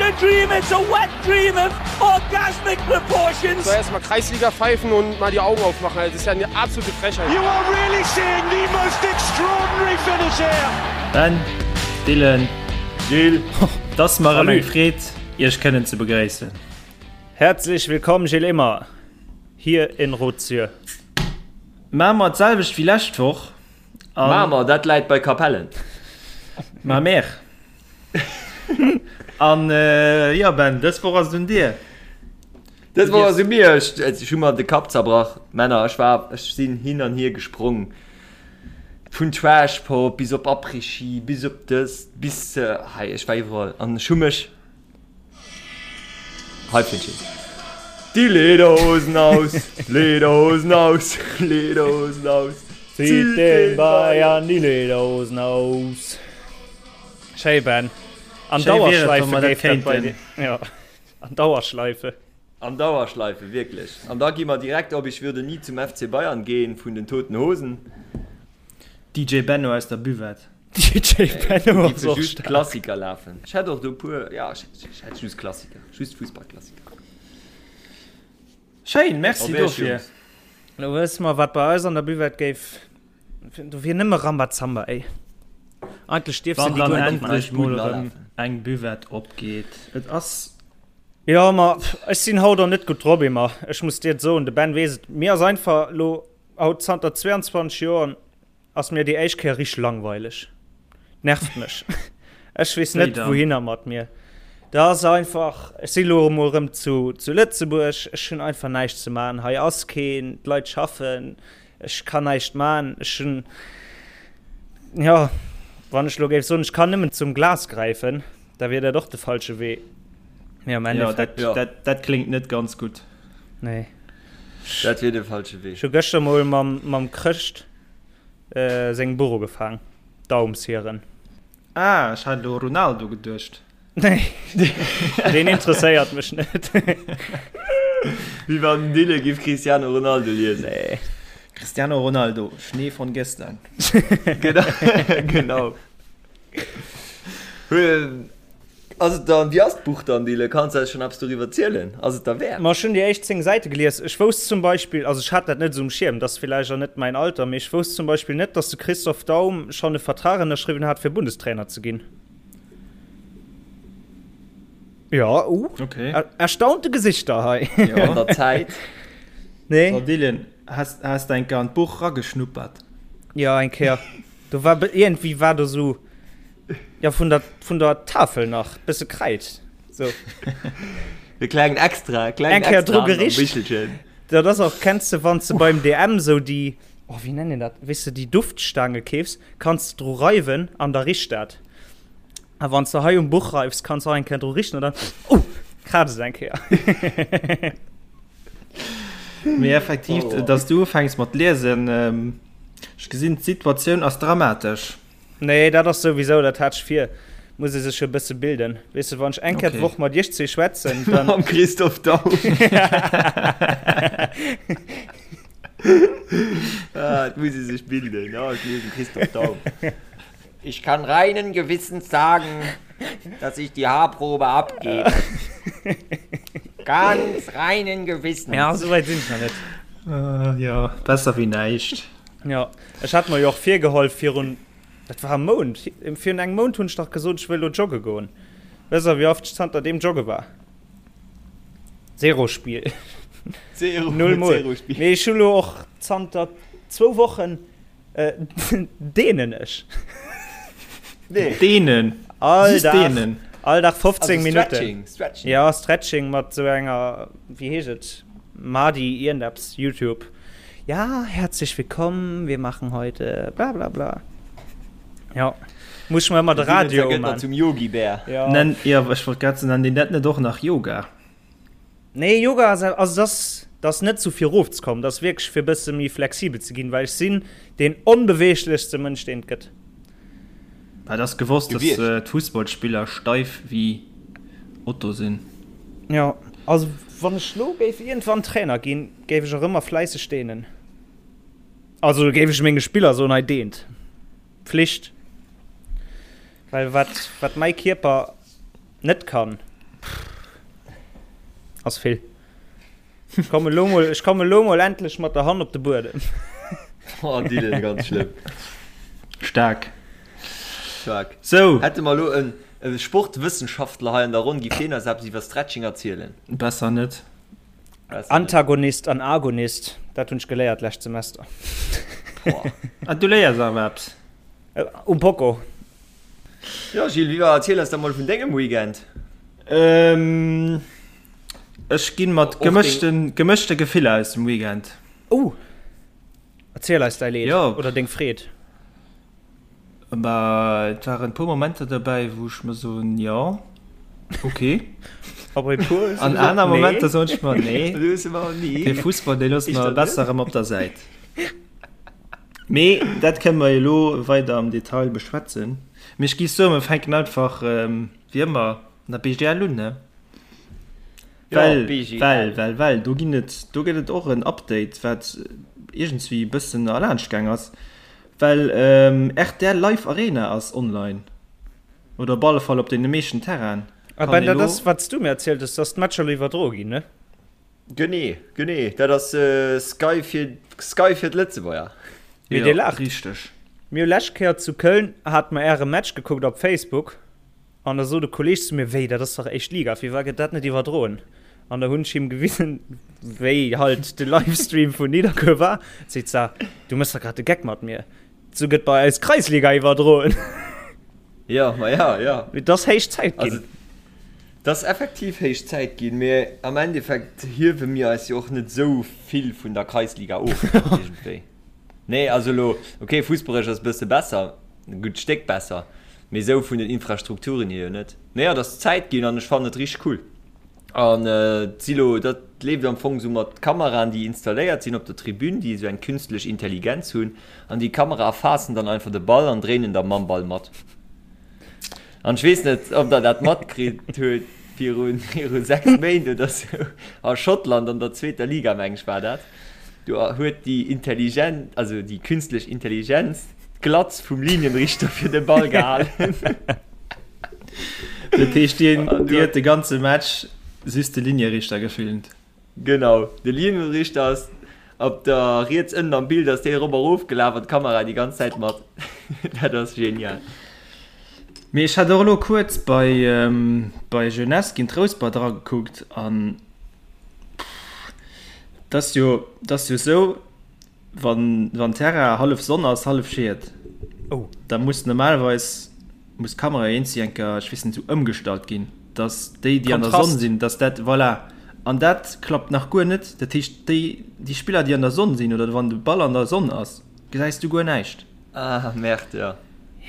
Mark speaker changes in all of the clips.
Speaker 1: a dream, it's a wet dream of orgasmic proportions.
Speaker 2: Soll erst mal Kreisliga pfeifen und mal die Augen aufmachen. Das ist ja eine absolute Frechheit.
Speaker 1: You are really seeing the most extraordinary finish here.
Speaker 3: Ben, Dylan,
Speaker 4: Gilles,
Speaker 3: et ass mer erëm eng Freed, Iech kënnen ze begréissen.
Speaker 4: Herzlich willkommen Gilles Immer hier in Rotsür.
Speaker 3: Maache mer d'selwecht wéi lescht Woch.
Speaker 5: Mamer, dat läit bei Capellen.
Speaker 3: Mamer. An jo Ben, dës Woch ass et un dir.
Speaker 5: Dës Woch ass et u mir. Ech, ech hu mer de Kapp zerbrach, Männer. Ech war, ech sinn hin an hier gesprong. Vun Trash Pop bis op Après-Ski, bis op dëst, bis hei. Ech war iwwerall an ech hu mech Hei fënnt een Die Lederhosen aus, Lederhosen aus, Lederhosen aus.
Speaker 4: Zieht den Bayern die Lederhosen aus. Schéi Ben. An
Speaker 3: Schéi wier et,
Speaker 4: Dauerschleife
Speaker 3: wa mer dat
Speaker 4: géif dat bei
Speaker 3: kéinten.
Speaker 4: dir. Ja, an Dauerschleife.
Speaker 5: An Dauerschleife, wierklech. An da gi mer direkt op Ich würde nie zum FC Bayern gehen vun den Toten Hosen.
Speaker 3: DJ Benno aus der Buvette.
Speaker 4: DJ Benno ass och
Speaker 5: just
Speaker 4: staark.
Speaker 5: Klassiker lafen. Ech hätt och do puer, ja ech hätt just Klassiker, just Fussballklassiker.
Speaker 3: Schéin, merci
Speaker 5: Op Iech,
Speaker 3: dofir.
Speaker 5: Jungs.
Speaker 4: Lo wësse mer wat bei eis an der Buvette géif, do wier nëmme Rambazamba ey. Eigentlech dierfs de
Speaker 3: Wann
Speaker 4: déi
Speaker 3: dann
Speaker 4: guer net
Speaker 3: endlech
Speaker 4: maachen.
Speaker 3: mol
Speaker 5: Buden
Speaker 3: erëm
Speaker 5: alafen.
Speaker 3: eng Buvette opgeet. Et ass.
Speaker 4: Jo ma ech sinn haut och net gutt drop Emma, ech muss dir et soen, de Ben weess et, mir ass einfach lo haut zanter 22 Joer Ass mir déi éischt Kéier richteg langweileg. Nervt mech. Ech weess net wouhinner mat mir. Dat ass einfach, ech si lo emol erëm zu, zu Lëtzebuerg, ech hunn einfach näischt ze man. Hei ass keen, d'Leit schaffen, ech kann näischt man. Ech hunn, jo, wann ech lo géif soen, ech kann nëmmen zum Glas gräifen, da wier dat och de falsche Wee. Mee am Endeffekt.
Speaker 3: Jo, dat, dat kléngt net ganz gutt.
Speaker 4: Nee.
Speaker 5: Dat wier de falsche Wee.
Speaker 4: Ech hu gëschter mol mam, mam Chrëscht sengem Buch ugefaang, Daumshieren.
Speaker 3: Ah, ech hat elo Ronaldo geduecht.
Speaker 4: Nee, deen interesséiert mech net.
Speaker 5: Wéi wann den Dylan giff Cristiano Ronaldo liesen.
Speaker 4: Nee.
Speaker 3: Cristiano Ronaldo, Schnee von gestern.
Speaker 5: Genau, genau. Ass et dann, wéi ass d'Buch dann, Dylan? Kanns de eis schonn eppes doriwwer zielen? Ass et derwäert?
Speaker 4: Ma ech hunn déi éischt 10 Säite gelies. Ech wousst zum Beispill, also ech hat dat net esou um Schierm, dat ass villäicht och net mäin Alter, mee ech wousst zum Beispill net, datt de Christoph Daum schonn e Vertrag ënnerschriwwen hat, fir Bundestrainer ze ginn. Jo, uh,
Speaker 3: Okay.
Speaker 4: erstaunte Gesichter hei.
Speaker 5: Jo, an der Zäit.
Speaker 4: Nee.
Speaker 3: So, Dylan, has, has de eng Kéier an d'Buch rageschnuppert?
Speaker 4: Jo, eng Kéier. Do war iergendwéi war do sou. Ja, vun der, vun der Tafel nach bësse Kräid. So.
Speaker 5: E klengen Extra, klengen
Speaker 4: Eng Kéier
Speaker 5: Extra
Speaker 4: dru
Speaker 5: an am
Speaker 4: gericht.
Speaker 5: Bichelchen.
Speaker 4: Dat ass och, kenns de, wann s de beim DM sou déi, oh, wéi nennt een dat, weess de, déi Duftstaange keefs, kanns de dru reiwen an da richt dat. A wann s de hei um Buch reifs, kanns de och eng Kéier dru richten an dann, oh, kraazt et eng Kéier.
Speaker 3: Mee effektiv,
Speaker 5: Oh.
Speaker 3: dass du ufänks mat liesen, ähm, ech gesinn, d'Situatioun ass dramatesch.
Speaker 4: Nee, dat ass souwisou, dat hat ech vir. Muss ee sech jo e bësse bilden. Weess de, wann ech eng Kéier
Speaker 3: Okay.
Speaker 4: d'Woch mat iech zwee schwätzen, dann.
Speaker 5: Mam Christoph Daum. Ah, et muss ee sech bilden. Ja, ech liesen Christoph Daum. Ich kann reinen Gewissens sagen, dass ich die Haarprobe abgebe. Ganz reinen Gewissens.
Speaker 4: Ja, souwäit sinn ech nach net.
Speaker 3: Äh, jo, besser wéi näischt.
Speaker 4: Jo, ech hat mer jo och virgeholl virun, dat war e Mount, virun engem Mount hunn ech dach gesot, ech wëll elo jogge goen. Wësst der, wéi oft ech zanter deem jogge war? Zero Spiel.
Speaker 5: Zero,
Speaker 4: Null Mol.
Speaker 5: Zero Spiel.
Speaker 4: Mee ech hu lo och zanter zwou Wochen dehnen ech.
Speaker 5: Nee.
Speaker 3: Dehnen?
Speaker 4: All
Speaker 3: Just
Speaker 4: Dag,
Speaker 3: dehnen?
Speaker 4: all Dag 15
Speaker 5: Also
Speaker 4: Minutten.
Speaker 5: Stretching, Stretching.
Speaker 4: Ja, Stretching mat sou enger, wéi heescht et, Madi iergendeppes, YouTube. Ja, herzlich willkommen, wir machen heute bla bla bla. Ja, muss ich mir ëmmer de Radio
Speaker 5: gëtt
Speaker 4: man.
Speaker 5: zum Yogi-Bär.
Speaker 4: Ja.
Speaker 3: Nenn, ja, ech wollt grad soen, nennt een dat net och nach Yoga?
Speaker 4: Nee, Yoga ass, also das, das net sou fir erofzekommen, das wierklech fir bësse méi flexibel ze ginn, well ech sinn deen onbeweeglechste Mënsch, deen et gëtt.
Speaker 3: Et ass gewosst, dass
Speaker 5: Gewiescht.
Speaker 3: d'Fussballspiller steif wéi Otto sinn.
Speaker 4: Jo, also wann ech lo géif iergendwann Trainer ginn, géif ech och ëmmer fläisseg dehnen. Also géif ech menge Spiller soen, hei dehnt. Pflicht. Well wat, wat mäi Kierper net kann. Ass vill. Ech komme lo mol, ech komme lo mol endlech mat der Hand op de Buedem.
Speaker 5: Oh, Dylan, ganz schlëmm.
Speaker 3: Staark.
Speaker 5: Staark.
Speaker 3: Sou.
Speaker 5: Hätte mer elo en Sportwëssenschaftler hei an der Ronn, giff deen eis eppes iwwer Stretching erzielen?
Speaker 3: Besser net.
Speaker 5: Besser net.
Speaker 4: Antagonist an Agonist, dat hunn ech geléiert lescht Semester.
Speaker 5: Boah.
Speaker 3: Ah, du léiers awer eppes.
Speaker 4: Um Poco.
Speaker 5: Jo, Gilles, wéi war, erziel eis da mol vun dengem Weekend.
Speaker 3: Ähm, ech ginn mat gemëschten, gemëschte Gefiller aus dem Weekend.
Speaker 4: Oh! Erziel eis däi Leed
Speaker 3: Jo.
Speaker 4: oder deng Freed.
Speaker 3: Bah, et waren e puer Momenter derbäi, wou ech mer soen, jo, ok.
Speaker 4: A bei puer hues du
Speaker 3: An
Speaker 4: gesot,
Speaker 3: aner
Speaker 4: nee.
Speaker 3: Momenter soen ech mer, nee,
Speaker 5: Du hues ëmmer nee.
Speaker 3: dee Fussball, dee loosse mer
Speaker 5: Éischter net.
Speaker 3: besser erëm op der Säit. Mee dat kënne mer elo weider am Detail beschwätzen. Mee ech géif soen, mer fänken einfach wéi ëmmer an der BGL un, ne? Well, well, well, well do ginn et, do gëtt et och en Update, wat iergendswéi e bëssen erlaanscht gaang ass, well rtl Live Arena ass online oder op alle Fall op deene meeschten Terrainen.
Speaker 4: A Ben, dat ass, wat s du mir erzielt hues, dass d'Matcher elo iwwerdroe ginn, ne?
Speaker 5: Genee, genee, dat ass Sky fir Sky fir d'Lëtzebuerger.
Speaker 4: Mee dir laacht.
Speaker 3: Richteg.
Speaker 4: Mir hu lescht Kéier zu Köln hate mer äre Match gekuckt op Facebook an da sot e Kolleeg zu mir, wéi dat ass dach éischt Liga, firwat gëtt dat net iwwerdroen? An da hunn ech him gewisen, wéi halt de Livestream vun Nidderkuer war. Seet se, du méchs dach grad de Geck mat mir, sou gëtt bei eis Kreisliga iwwerdroen.
Speaker 5: Jo, ma ja, jo.
Speaker 4: Et ass héich Zäit ginn.
Speaker 5: Also, Et ass effektiv héich Zäit ginn, mee am Endeffekt hiewe mir eis jo och net esou vill vun der Kreisliga of iergendwéi. Nee, also elo, ok, fussballeresch ass e bësse besser, e gutt Stéck besser, mee esou vun den Infrastrukturen hier jo net. Mee jo, et ass Zäit ginn an ech fannen et richteg cool. An et si lo, dat leeft am Fong esou mat Kameraen, déi installéiert sinn op der Tribün, déi esou eng künstlech Intelligenz hunn an déi Kamera erfaassen dann einfach de Ball an dréinen da mam Ball mat. An ech weess net, ob der dat matkritt huet, viru viru 6 Méint oder sou, a Schottland an der zweeter Liga, meng ech war dat, do huet déi intelligent, also déi künstlech Intelligenz d'Glatz vum Linienrichter fir de Ball gehalen.
Speaker 3: Dat heescht, déi huet de ganze Match just de Linierichter gefilmt?
Speaker 5: Genau, de Linienrichter ass op der riets ënnen am Bild ass dee erop a rof gelaf an d'Kamera déi ganz Zäit mat. Dat ass genial.
Speaker 3: Mee ech hat och elo kuerz bei bei Jeunesse géint Rouspert eragekuckt an pff, et ass jo, et ass jo esou, Wann wann Terrain hallef Sonn ass, hallef Schied,
Speaker 4: oh.
Speaker 3: da muss normalerweis muss d'Kamera eenzi enker, ech weess net, esou ëmgestallt ginn, dass déi déi an der Sonn sinn, dass dat voilà. An dat klappt nach guer net. Dat heescht déi déi Spiller déi an der Sonn sinn oder wann de Ball an der Sonn ass, gesäis du guer näischt.
Speaker 5: Ah merde, jo.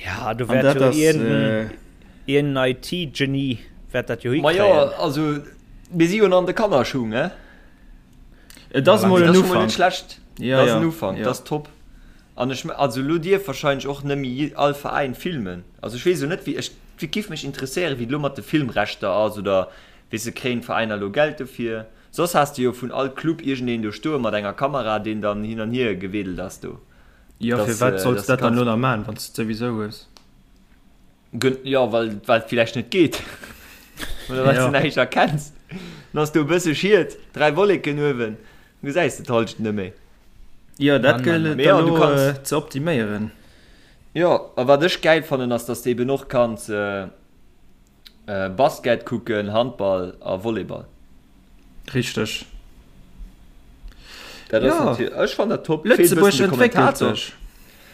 Speaker 4: Ja, do
Speaker 3: An
Speaker 4: wäert
Speaker 3: dat
Speaker 4: jo
Speaker 3: ass
Speaker 4: iergend en IT-Genie wäert dat jo
Speaker 5: Ma jo,
Speaker 4: hikréien.
Speaker 5: also mir si jo nach an de Kannerschung, ne?
Speaker 3: Et ass mol en
Speaker 5: Ufank.
Speaker 3: Ufank.
Speaker 5: Net schlecht.
Speaker 3: Ja,
Speaker 5: dat ass en
Speaker 3: ja,
Speaker 5: Ufank,
Speaker 3: ja.
Speaker 5: dat ass top. An ech, also elo dierf wahrscheinlech och nëmme all Veräin filmen. Also ech weess elo net wéi, ech giff mech interesséieren wéi et elo mat de Filmrechter ass oder weess de, kréien d'Veräiner elo Geld dofir? Soss has de jo vun all Club iergendeen do stoe mat enger Kamera deen dann hin an hier geweedelt ass do.
Speaker 3: Jo,
Speaker 5: Dass,
Speaker 3: firwat solls
Speaker 5: dass
Speaker 3: de dat dann
Speaker 5: ganz
Speaker 3: elo nach maachen, wann s de et souwisou hues?
Speaker 5: Jo, well well et villäicht net geet. Oder well s de näischt erkenns. Dann ass do e bësse Schiet, 3 Wolleken uewen, dann gesäis de d'Hallschent net méi.
Speaker 3: Jo, dat gëllt et
Speaker 5: Mee jo, du
Speaker 3: elo
Speaker 5: kanns.
Speaker 3: ze optiméieren.
Speaker 5: Jo, a wat ech gäil fannen ass, dass de eben och kanns Basket kucken, Handball a Volleyball.
Speaker 3: Richteg.
Speaker 5: Dat ass
Speaker 3: Jo.
Speaker 5: natierlech, ech fannen dat top. Feelt e
Speaker 3: Lëtzebuerg
Speaker 5: bëssen de
Speaker 3: entwéckelt
Speaker 5: Kommentator.
Speaker 3: sech.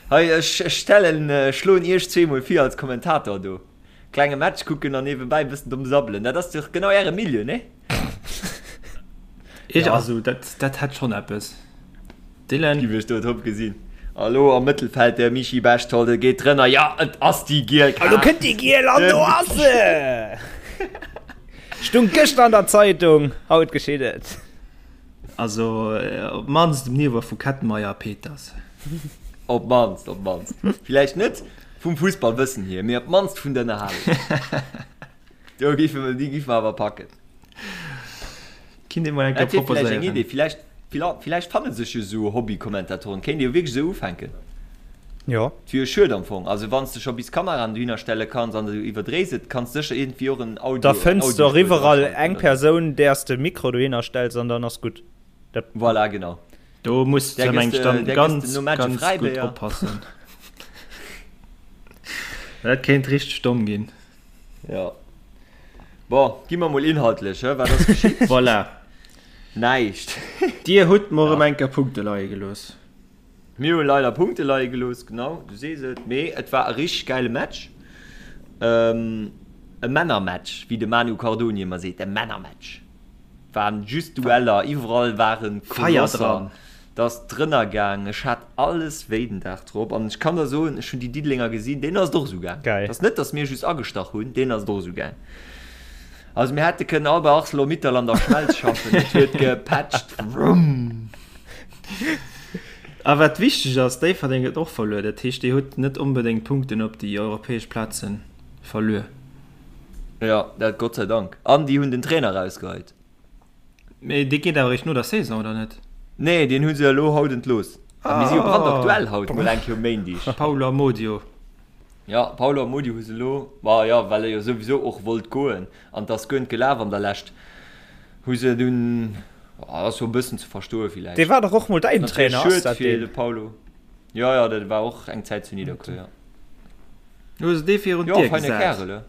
Speaker 5: Hei, ech stellen, schloen iech zweemol vir als Kommentator do. Klenge Match kucken an niewebäi bëssen domm sabbelen. Dat ass dach genau äre Milieu, nee?
Speaker 3: Ech, also dat, dat hätt schonn eppes. Dylan?
Speaker 5: Giff ech do top gesinn. A lo am Mëttelfeld de Michi Bechtold, e geet drënner, jo et ass déi giel
Speaker 4: A lo
Speaker 5: Kaart.
Speaker 4: kënnt déi giel an do ass se! Stung gëschter an der Zeitung, haut geschitt et.
Speaker 3: Also op d'mannst um Niveau vu Kettenmeyer a Peters.
Speaker 5: Op d'mannst, op d'mannst. Villäicht net vum Fussballwëssen hier, mee op d'mannst vun der Ënnerhalung. Do géife mer, déi géife mer awer packen.
Speaker 3: Kinnt ee mol eng Kéier
Speaker 5: Dat wier villäicht eng
Speaker 3: proposéieren.
Speaker 5: Idee. Villäicht, villäicht fanne sech jo esou Hobby-Kommentatoren. Kéint ee jo wierklech esou ufänken.
Speaker 4: Jo.
Speaker 5: Et wier jo schued am Fong. Also wann s de scho bis Kameraen dohinner stelle kanns an du iwwerdréis et, kanns de sécher iergendwéi och en Audio,
Speaker 4: Da fënns de och iwwerall eng Persoun, där s de Mikro dohinner stells an dann ass gutt.
Speaker 5: Dat. Voilà, genau.
Speaker 3: Do muss de meng ech dann ganz, ganz gutt oppassen. Dat kéint richteg domm ginn.
Speaker 5: Jo. Bon, gi mer mol inhaltlech, hë? Wat ass geschitt?
Speaker 3: Voilà.
Speaker 5: Näischt.
Speaker 3: Dir hutt mer erëm eng Kéier Punkte leie gelooss.
Speaker 5: Mir hu leider Punkte leie gelooss, genau, du sees et. Mee et war e richteg gäile Match. E Männermatch, wéi de Manu Cardoni ëmmer seet, e Männermatch. Waren just Dueller, iwwerall waren Kolosser. Et ass drënner gaang. Ech hat alles wéi den Dag drop. An ech kann der soen, ech hunn déi Diddelenger gesinn, deenen ass et och esou gaang. Et ass net, datt mir just agestach hunn, deenen ass et och esou gaang. Also mir hätte kënnen all bei Arcelor-Mittal an der Schmelz schaffen, et huet gepätscht, wrumm.
Speaker 3: A wat wichteg ass, Déifferdeng huet och verluer. Dat heescht, Dir hutt net onbedéngt Punkten op déi europäesch Plaze verluer.
Speaker 5: Jo, dat Gott sei Dank. An déi hunn den Trainer erausgeheit.
Speaker 3: Mee dee geet awer eréischt no der Saison, oder net?
Speaker 5: Nee, deen hu se elo haut entlooss. A mir si jo brandaktuell haut mol eng Kéier um Méindeg.
Speaker 3: Paolo Amodio.
Speaker 5: Jo, Paolo Amodio hu se elo, ma jo, well e jo souwisou och wollt goen an et ass guer net gelaf an der Lescht, hu se dunn. Ass jo e bëssen ze verstoe villäicht.
Speaker 4: Dee war dach och mol däin Trainer,
Speaker 5: ass dat deen? De Paulo. Jo, jo, dat war och eng Zäit zu Nidderkuer, jo.
Speaker 3: Hu se dee virun d'Dier gesat? Jo, feine
Speaker 5: Kärel, he.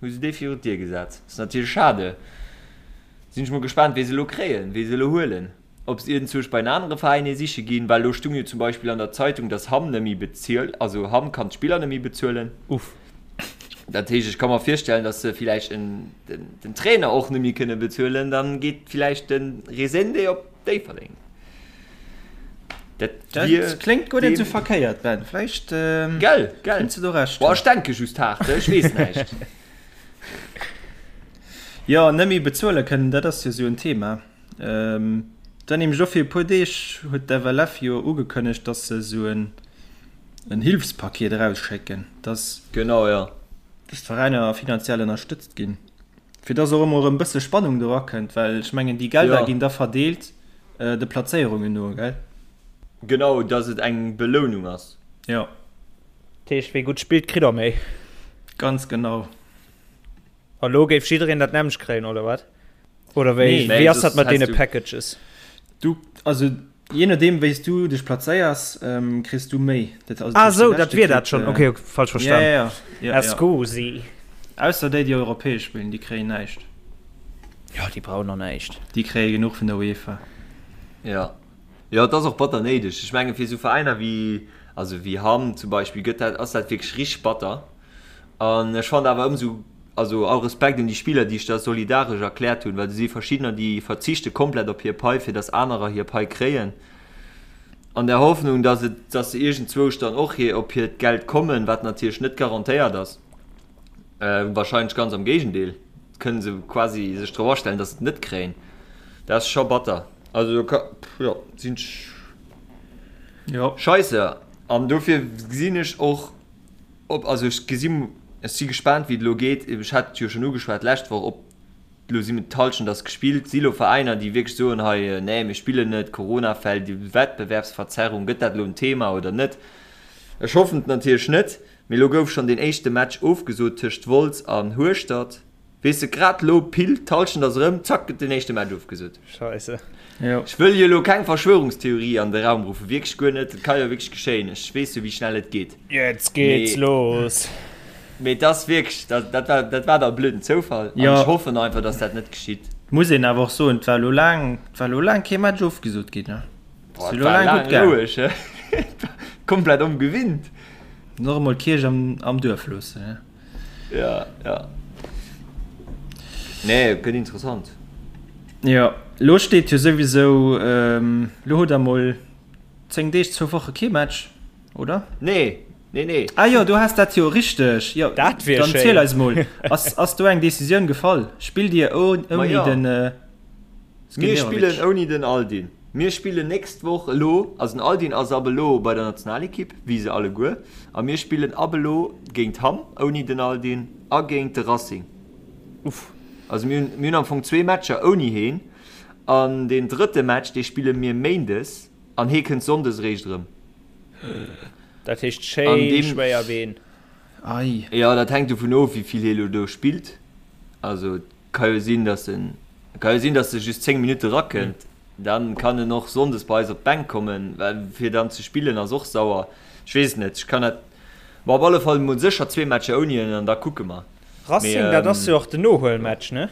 Speaker 5: Hu se dee virun d'Dier gesat. Ass natierlech schade. Sinn ech mol gespaant, wee se elo kréien, wee se elo huelen. Ob se iergendzwousch bei en anere Veräin ee siche ginn, well elo stung jo zum Beispill an der Zeitung, dass Hamm net méi bezilt, also Hamm kann d'Spiller net méi bezuelen.
Speaker 4: Uff.
Speaker 5: Dat heescht, ech ka mer virstellen, datt se villäicht en, den, den Trainer och net méi kënne bezuelen, dann geet villäicht de Resende op Déifferdeng.
Speaker 3: Dat Dat wier kléngt guer net esou verkéiert, Ben. Vläicht
Speaker 5: Gell, gell.
Speaker 3: kéints de do Recht
Speaker 5: Boah, hunn. ech denke just haart, ech weess näischt.
Speaker 3: Jo, net méi bezuele kënnen, dat ass jo esou en Thema. Et war nämlech och fir e puer Deeg huet d'FLF jo ugekënnegt, datt se esou en en Hilfspaket erausschécken, datt
Speaker 5: Genau, jo.
Speaker 3: datt d'Veräiner finanziell ënnerstëtzt ginn, fir datt och emol erëm e bësse Spannung do erakënnt, well ech mengen déi Gelder ginn da verdeelt de Plazéierungen no, gell?
Speaker 5: Genau, datt et eng Belounung ass.
Speaker 3: Jo.
Speaker 4: Dat heescht, wee gutt spillt, kritt och méi.
Speaker 3: Ganz genau.
Speaker 4: A lo géif jiddereen dat nämmlecht kréien, oder wat? Oder wéi,
Speaker 3: Nee.
Speaker 4: wéi ass dat mat deene Packages?
Speaker 3: Du, also je nodeem wéi s du dech plazéiers, ähm, kriss du méi.
Speaker 4: Dat, also, ah, sou, dat wier dat schonn. Okay, okay, falsch verstan.
Speaker 3: Ja, ja, ja.
Speaker 4: Scusi.
Speaker 3: Ausser déi, déi europäesch spillen, déi kréien näischt.
Speaker 4: Jo, déi brauchen och näischt.
Speaker 3: Déi kréie genuch vun der UEFA.
Speaker 5: Ja. Jo, et ass och batter néideg. Ech menge fir esou Veräiner wéi, also wéi Hamm zum Beispill, gëtt dat, ass dat wierklech richteg batter. An ech fannen awer ëmsou, also all Respekt un déi Spiller, déi sech da solidaresch erkläert hunn, well do si verschiddener, déi verzichte komplett op hir Pai, fir datt anerer hir Pai kréien, an der Hoffnung, datt et, datt se iergendzwousch dann och hir, op hiert Geld kommen, wat natierlech net garantéiert ass. Wahrscheinlech ganz am Géigendeel, kënne se quasi sech drop astellen, datt se et net kréien. Dat ass scho batter. Also do ka, jo, sinn ech,
Speaker 3: Jo.
Speaker 5: Scheisse. An dofir gesinn ech och, Ob, also ech gesi, ech si gespaant wéi et elo geet. Ech hat et jo schonn ugeschwat d'lescht Woch, ob elo si d'Hallschent ass gespillt, si elo Veräiner déi wierklech soen, hei nee mir spillen net, Coronafäll, déi Wettbewerbsverzerrung, gëtt dat elo en Thema oder net? Ech hoffen et natierlech net, mee elo gouf schonn deen éischte Match ofgesot tëscht Wolz an Hueschtert. Weess de, grad lo, pile, d'Hallschent ass erëm, zack, gëtt den éischte Match ofgesot.
Speaker 4: Scheisse.
Speaker 3: Jo.
Speaker 5: Ech wëll jo elo keng Verschwörungstheorie an de Raum ruffen, wierklech guer net, et ka jo wierklech geschéien, ech weess jo wéi schnell et geet.
Speaker 4: Jetzt geht's
Speaker 5: Mee,
Speaker 4: los.
Speaker 5: mee et ass wierklech, dat, dat war, dat war da e blöden Zoufall an
Speaker 3: Jo.
Speaker 5: ech hoffen einfach, dass dat net geschitt.
Speaker 3: Muss een awer och soen, et war elo laang, et war elo laang kee Match ofgesot ginn, ne?
Speaker 5: Boah,
Speaker 3: Ass
Speaker 5: et
Speaker 3: elo
Speaker 5: war
Speaker 3: laang
Speaker 5: laang
Speaker 3: gutt gaang.
Speaker 5: roueg, he? Komplett ongewinnt.
Speaker 3: Och emol d'Kierch am, am Duerf loossen, ne?
Speaker 5: Ja, ja. Nee, gëtt interessant.
Speaker 3: Jo, lo steet jo souwisou, lo hutt der mol 10 Deeg, zwou Woche kee Match, oder?
Speaker 5: Nee, nee, nee.
Speaker 3: Ah jo, du has dat jo, richteg. Jo,
Speaker 4: Dat wier
Speaker 3: dann
Speaker 4: schéin.
Speaker 3: ziel eis mol, ass, ass do eng Decisioun gefall? Spillt Dir
Speaker 5: Ma
Speaker 3: ouni
Speaker 5: jo.
Speaker 3: den
Speaker 5: Mir spillen ouni den Aldin. Mir spillen nächst Woch elo, also den Aldin ass ab elo bei der Nationalekipp, wéi se alleguer, a mir spillen ab elo géint Hamm ouni den Aldin a géint de Racing.
Speaker 4: Uff.
Speaker 5: Also mir hunn, mir hunn am Fong zwee Matcher ouni heen an deen drëtte Match, dee spille mir méindes an hee kënnt sonndes eréischt erëm.
Speaker 4: Dat heescht schéin schwéier Been.
Speaker 3: Ei.
Speaker 5: Jo, dat hänkt dovun of, wéi vill hie lo do spillt. Also et ka jo sinn, datt en, et ka jo sinn, datt e just 10 Minutte rakënnt. Dann kann en och sonndes bei eis op d'Bänk kommen, well fir dann ze spillen ass och sauer. Ech weess et net, ech kann dat, ma op alle Fall mol sécher zwee Matcher ouni en an da kucke mer.
Speaker 4: Racing, dat ass jo och den Nohuelmatch, ne?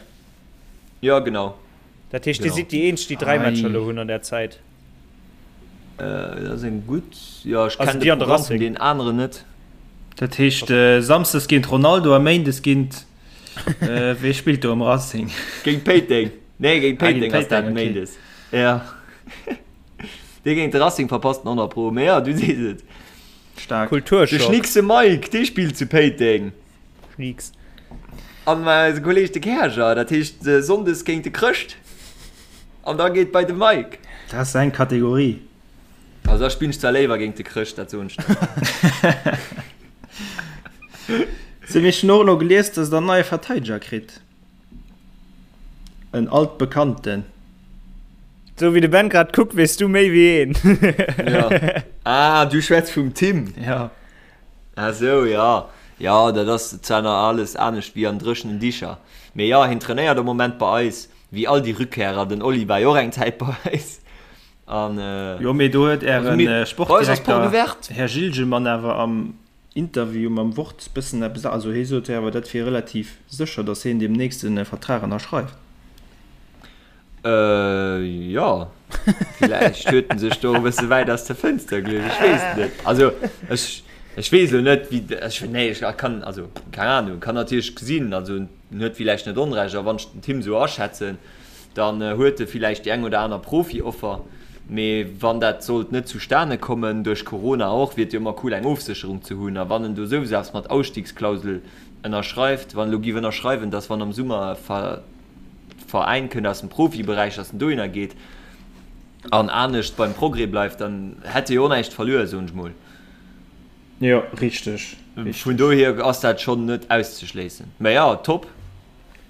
Speaker 5: Jo, genau.
Speaker 4: Dat heescht, Dir sidd déi eenzeg, déi 3 Matcher elo hunn an där Zäit.
Speaker 5: Dat ass eng gutt, jo, ech kennen de Programm vun deenen aneren net.
Speaker 3: Dat heescht Samsdes géint Ronaldo a Méindes géint, wee spillt do am Racing?
Speaker 5: Géint Péiteng. Nee, géint Péiteng ass dat Méindes. Jo. Dee géint de Racing verpasst den 100 pro. Mee jo, du sees et.
Speaker 3: Staark.
Speaker 4: Kulturschock.
Speaker 5: De Schnickse Mike, dee spillt zu Péiteng.
Speaker 4: Schnieks.
Speaker 5: An eise Kolleg de Käerger, dat heescht Sonndes géint de Chrëscht. An da geet bei de Mike.
Speaker 3: Dat ass eng Kategorie.
Speaker 5: Also da spillen ech zwar léiwer géint de Chrëscht, dat soen ech der.
Speaker 3: Sou, mee ech hunn och elo gelies, dass der en neie Verteideger kritt. En alt Bekannten.
Speaker 4: Sou wéi de Ben grad kuckt, weess du méi wéi een.
Speaker 5: Ja. Ah, du schwätz vum Tim.
Speaker 3: Ja.
Speaker 5: Ah sou, jo. Jo, dat ass zwar nach alles anescht wéi an dréchenen Dicher. Mee jo, hien trainéiert am Moment bei eis, wéi all déi Rückkehrer. Den Oli war jo och eng Zäit bei eis. An,
Speaker 3: Jo, mee do huet
Speaker 5: also
Speaker 3: ären
Speaker 5: mir, bei eis ass
Speaker 3: Sportdirekter,
Speaker 5: d'Porte ouverte.
Speaker 3: Här Gilgemann, awer am Interview mam Wort bëssen eppes, also hie sot jo awer, dat wier relativ sécher, datt hien deemnächst e Vertrag ënnerschreift.
Speaker 5: Jo, villäicht huet en sech do e bësse wäit aus der Fënster geluecht, ech weess et net. Also ech, ech weess elo net, wéi, ech, nee, ech kann, also keng Ahnung, kann natierlech gesinn, also en huet villäicht net Onrecht, a wann ech den Tim esou aschätzen, dann huet e villäicht déi eng oder aner Profi-Offer, mee wann dat sollt net zustane kommen, duerch Corona och, wier et jo ëmmer cool eng Ofsécherung ze hunn, a wann en do souwisou eppes mat Ausstiegsklausel ënnerschreift, wann elo giff ënnerschreiwen, dass wann am Summer e Veräin kënnt aus dem Profiberäich, dass en dohinner geet an anescht beim Progrès bleift, dann hätt e jo och näischt verluer, soen ech mol.
Speaker 3: Jo, richteg.
Speaker 5: Vun dohier ass dat schonn net auszeschléissen. Mä jo, top.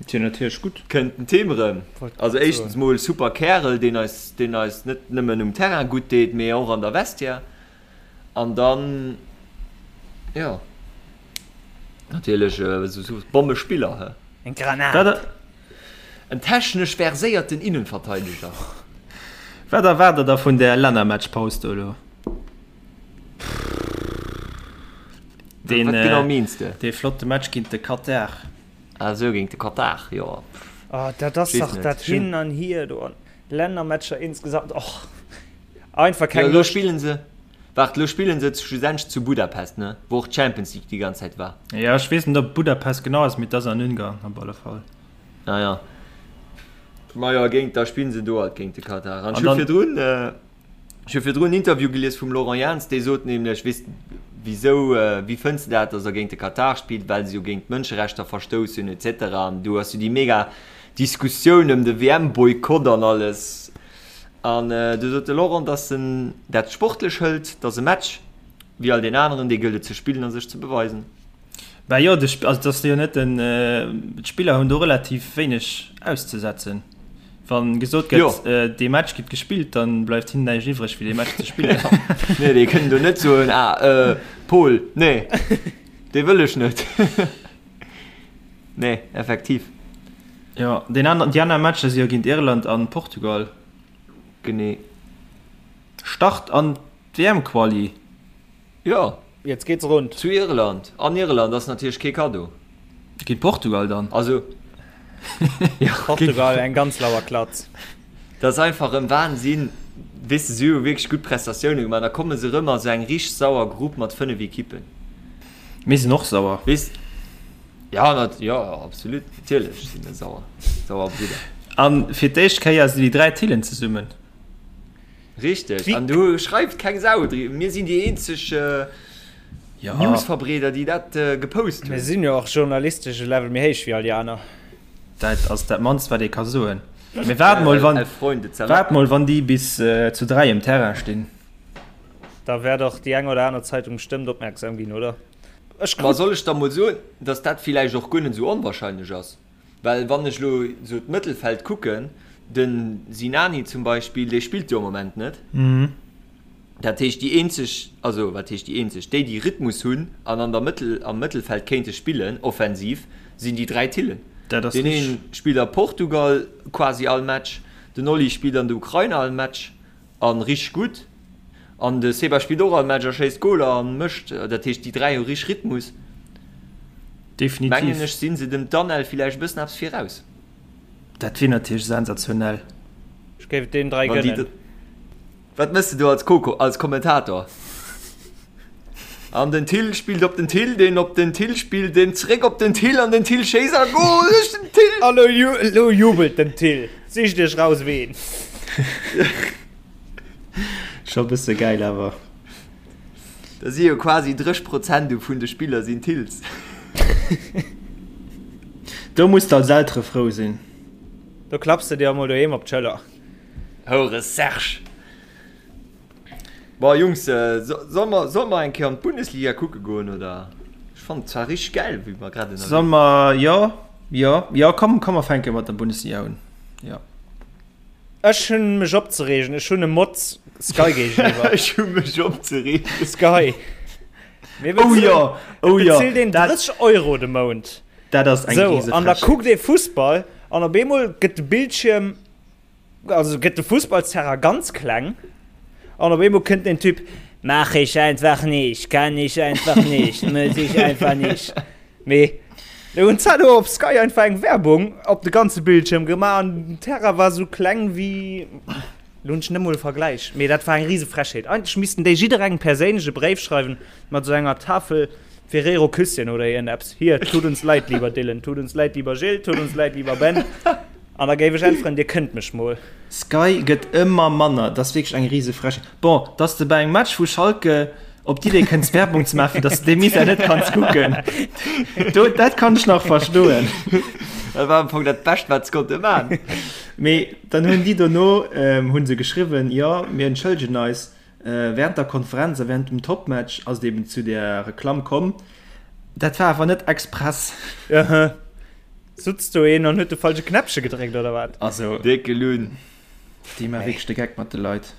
Speaker 3: Et wier natierlech gutt.
Speaker 5: Kënnt den Tim erëm. Also éischtens mol super Kärel, deen eis, deen eis net nëmmen um Terrain gutt deet, mee och an der Vestiaire. An dann, jo, natierlech esou Bommespiller, he.
Speaker 4: Eng Granat!
Speaker 5: En technesch verséierten Innenverteideger.
Speaker 3: Wat erwaart der da vun där Lännermatchpaus do elo? Deen,
Speaker 5: Wat genau meens de?
Speaker 3: Dee flotte Match géint de Katar.
Speaker 5: Ah sou, géint de Katar, jo.
Speaker 4: Oh, dat ass
Speaker 5: Weess
Speaker 4: dach
Speaker 5: net.
Speaker 4: dat Hin an Hier do an Lännermatcher insgesamt. Och, einfach
Speaker 5: Jo,
Speaker 4: keng
Speaker 5: elo
Speaker 4: Loscht.
Speaker 5: spillen se, waart, elo spillen se schlussendlech zu Budapest, ne? Wou och d'Champions League déi ganz Zäit war.
Speaker 3: Jo, ech weess net, ob Budapest genau ass, mee et ass an Ungarn op alle Fall.
Speaker 5: Ah ja. Majo, géint, da spillen se do halt géint de Katar. An
Speaker 3: An
Speaker 5: ech hu
Speaker 3: dann.
Speaker 5: virdrun, Ech hu virdrun en Interview gelies vum Laurent Jans, dee sot nämlech, weess wisou, wéi fënns de dat, datt der géint de Katar spillt, well se jo géint d'Mënscherechter verstouss hunn et cetera. An do ass jo déi mega Diskussioun ëm de WM-Boykott an alles. An du sot de Laurent, datt en dat sportlech hëlt, datt e Match wéi all deen aneren, dee gëllt et ze spillen a sech ze beweisen.
Speaker 3: Bah jo, de, also dat ass jo net den, d'Spiller hunn do relativ wéineg auszesetzen. Wann gesot gëtt, dee Match gëtt gespillt, dann bleift hinnen näischt iwwreg wéi dee Match ze spillen.
Speaker 5: Nee, déi kënnen do net soen, ah, Paul, nee, dee wëll ech net. Nee, effektiv.
Speaker 3: Jo, deen aner, déi aner Matcher si jo géint Irland an Portugal.
Speaker 5: Genee.
Speaker 3: Start an d'WM-Quali.
Speaker 5: Jo.
Speaker 4: Jetzt geht's rund.
Speaker 5: Zu Irland. An Irland ass natierlech kee Kaddo.
Speaker 3: Géint Portugal dann.
Speaker 5: Also, jo.
Speaker 4: Portugal, eng ganz lauer Klatz.
Speaker 5: Dat ass einfach en Wahnsinn. Weess de, si hu wierklech gutt Prestatioune gemaach. Da komme se erëm a sou eng richteg sauer Grupp mat 5 Ekippen.
Speaker 3: Mir sinn och sauer.
Speaker 5: Weess, ja, nat, jo, absolut, natierlech si mir sauer. Sauer Bridder.
Speaker 3: A fir d'éischt Kéier sinn déi 3 Tillen zesummen.
Speaker 5: Richteg, an do schreift keng Sau driwwer. Mir sinn déi eenzeg Newsverbreeder, déi dat gepost hunn.
Speaker 4: Mir sinn jo och journalistesch e Level méi héich wéi all déi aner.
Speaker 3: Dat ass dat mannst, wat ee ka soen. Mee waart mol, wann, waart mol, wann déi bis zu 3 um Terrain stinn.
Speaker 4: Da wäert och déi eng oder aner Zeitung bestëmmt opmierksam ginn, oder?
Speaker 5: Ech Ma soll ech da mol soen, datt dat villäicht och guer net esou onwahrscheinlech ass? Well wann ech elo esou d'Mëttelfeld kucken, de Sinani zum Beispill, dee spillt jo am Moment net. Dat heescht déi eenzeg, also wat heescht déi eenzeg, déi déi Rhythmus hunn an an der Mëttel, am Mëttelfeld kéinte spillen offensiv, sinn déi 3 Tillen.
Speaker 3: Dat ass
Speaker 5: Deen
Speaker 3: richteg.
Speaker 5: een spillt a Portugal quasi all Match, den Oli spillt an der Ukraine all Match a richteg gutt an de Seba spillt och all Match a schéisst Goler a mécht. Dat heescht déi 3 hu richteg Rhythmus.
Speaker 3: Definitiv.
Speaker 5: Mengen ech sinn se dem Danel villäicht e bëssen eppes viraus.
Speaker 3: Dat wier natierlech sensationell.
Speaker 4: Ech géif et deenen 3
Speaker 5: Wann déi
Speaker 4: gënnen.
Speaker 5: Wat mëss de do als Coco, als Kommentator? An den Thill spillt op den Thill, deen op den Thill spillt, deen zréck op den Thill an den Thill schéisst a Goal duerch den Thill!
Speaker 4: An elo jubelt den Thill. Sicht iech raus ween.
Speaker 3: Scho bësse gäil awer.
Speaker 5: Da si jo quasi 30 Prozent vun de Spiller sinn Thills.
Speaker 3: Do muss de als Eltere frou sinn.
Speaker 4: Do klapps de dir emol doheem op d'Schëller.
Speaker 5: Houre Serge! Bon Jungs, solle mer, solle mer eng Kéier an d'Bundesliga kucke goen oder? Ech fannen et zwar richteg gäil wéi mer grad ënnerwee
Speaker 3: Solle mer, jo, jo, jo, komm, komm mer fänke mat der Bundesliga un, jo.
Speaker 4: Ech hunn mech opzereegen, ech hunn e Motz Sky géigeniwwer.
Speaker 5: Ech hu mech opzereegen.
Speaker 4: Sky. Mir
Speaker 3: Oh
Speaker 4: bezuelen,
Speaker 3: jo, oh
Speaker 4: et
Speaker 3: jo,
Speaker 4: bezilt een
Speaker 3: dat,
Speaker 4: 30 Euro de Mount.
Speaker 3: dat ass eng
Speaker 4: Sou, an da
Speaker 3: Risefrechheet.
Speaker 4: kuckt ee Fussball an op eemol gëtt de Bildschierm Also gëtt de Fussballsterrain ganz kleng an op eemol kënnt den Typ, Mach ich einfach nicht, kann ich einfach nicht, muss ich einfach nicht. Mee do hunn d'Zalo op Sky einfach eng Werbung op de ganze Bildschierm gemaach an den Terrain war sou kleng wéi, lo hunn ech net mol e Vergläich, mee dat war eng rise Frechheet. Eigentlech missten déi jidderengem perséinlech e Bréif schreiwen mat sou enger Tafel Ferrero Küsschen oder iergendeppes, Hier, tut uns leid, lieber Dylan, tut uns leid, lieber Gilles, tut uns leid, lieber Ben. An da géif ech äntweren, Dir kënnt mech mol.
Speaker 3: Sky gëtt ëmmer manner, dat ass wierklech eng rise Frechheet. Bon, dass de bei engem Match vu Schalke op d'Idee kënns Werbung ze maachen, fir dass de dee Misär net kanns kucken, do, dat kann ech nach verstoen.
Speaker 5: Dat war am Fong dat Bescht, wat se konnte man.
Speaker 3: Mee dann hunn déi dono, hu se geschriwwen, jo, mir entschëllegen eis, während der Konferenz a während dem Topmatch ass et eben zu där Reklamm komm. Dat war awer net express.
Speaker 4: Sutz do een an huet de falsche Knäppche gedréckt oder wat?
Speaker 3: Also
Speaker 5: Décke Lunn.
Speaker 3: Déi man wierklech de Geck mat de Leit.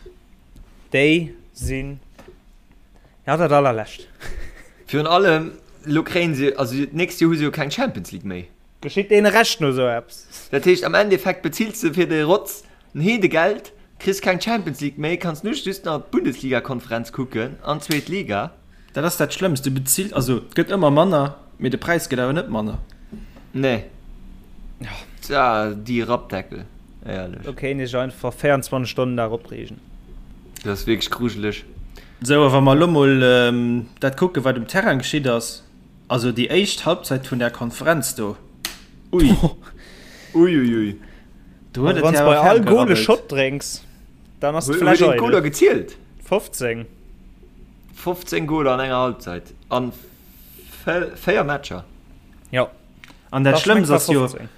Speaker 4: Déi sinn ja dat allerlescht.
Speaker 5: Virun allem lo kréien se, also d'nächst Joer hu se jo keng Champions League méi.
Speaker 4: Geschitt deene Recht no sou eppes.
Speaker 5: Dat heescht am Endeffekt bezills de fir de Rotz en Heedegeld, kriss keng Champions League méi, kanns nu just nach d'Bundesliga-Konferenz kucken an d'zweet Liga.
Speaker 3: Dat ass dat Schlëmmst, du bezills, also et gëtt ëmmer manner, mee de Präis gëtt awer net manner.
Speaker 5: Nee. Tja, déi Rappdeckel, éierlech.
Speaker 4: Do kéint ech einfach 24 Stonnen Dag opreegen.
Speaker 5: Dat ass wierklech grujeleg.
Speaker 3: Sou, a wa mer elo mol dat kucken, wat um Terrain geschitt ass, also déi éischt Halbzeit vun där Konferenz do, ui.
Speaker 5: Ui, ui, ui.
Speaker 3: Do huet et
Speaker 4: Wann s
Speaker 3: jo
Speaker 4: bei
Speaker 3: awer
Speaker 4: all
Speaker 3: ferm
Speaker 4: Goal e
Speaker 3: gerabbelt.
Speaker 4: Shot drénks, dann ass
Speaker 5: Huet
Speaker 4: d'Fläsch
Speaker 5: een d'Goler
Speaker 4: eidel.
Speaker 5: gezielt?
Speaker 4: 15.
Speaker 5: 15 Goler an enger Halbzeit an 4 Matcher.
Speaker 4: Jo.
Speaker 3: An dat
Speaker 4: Da schmeckt
Speaker 3: Schlëmmst ass jo,
Speaker 4: 15.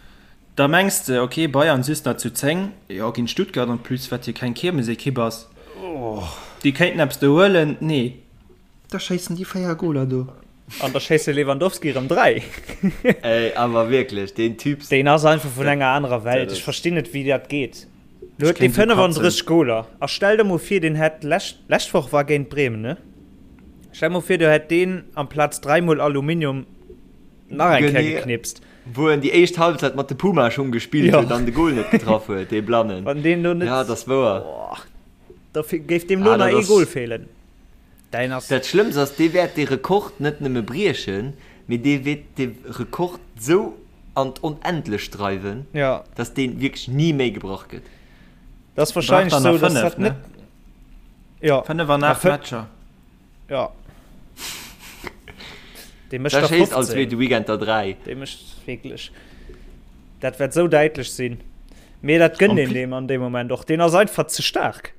Speaker 3: da mengs de, ok, Bayern just nach zu 10, jo, géint Stuttgart en plus, wat jo keng Kiermesekipp ass, déi kéinten eppes do huelen. Nee, da schéissen déi 4 Goler do.
Speaker 4: An da schéisst de Lewandowski erëm 3.
Speaker 5: Ey, awer wierklech, deen Typ.
Speaker 4: Deen ass einfach vun enger anerer Welt. Ech verstinn net, wéi dat geet. Lo huet dee 35 Goler. A stell der mol vir, deen hätt lescht, lescht Woch war géint Bremen, ne? Stell mol vir, do hätt deen amplaz dräimol Aluminium nach eng Kéier geknipst.
Speaker 5: Wou en déi éischt Halbzeit mat de Puma-Schung gespillt huet an de Gol net getraff huet, dee Blannen.
Speaker 4: Wann deen do net.
Speaker 5: Ja, dat ass wouer.
Speaker 4: Da géif deem lo nach ee Gol feelen.
Speaker 5: Däin ass. Dat Schlëmmst ass, dee wäert dee Rekord net nëmme briechen, mee dee wäert dee Rekord sou an d'Onendlecht dreiwen,
Speaker 4: ja.
Speaker 5: dass dee wierklech ni méi gebrach gëtt.
Speaker 4: Dat ass wahrscheinlech sou, dass dat net.
Speaker 3: Ja. 5 an 8 Matcher.
Speaker 4: Ja. Dee mécht
Speaker 5: der
Speaker 4: 15.
Speaker 5: All zweete Weekend der 3.
Speaker 4: Dee mécht wierklech. Dat wäert sou däitlech sinn. Mee dat gënnt een deem an deem Moment och. Deen ass einfach ze staark.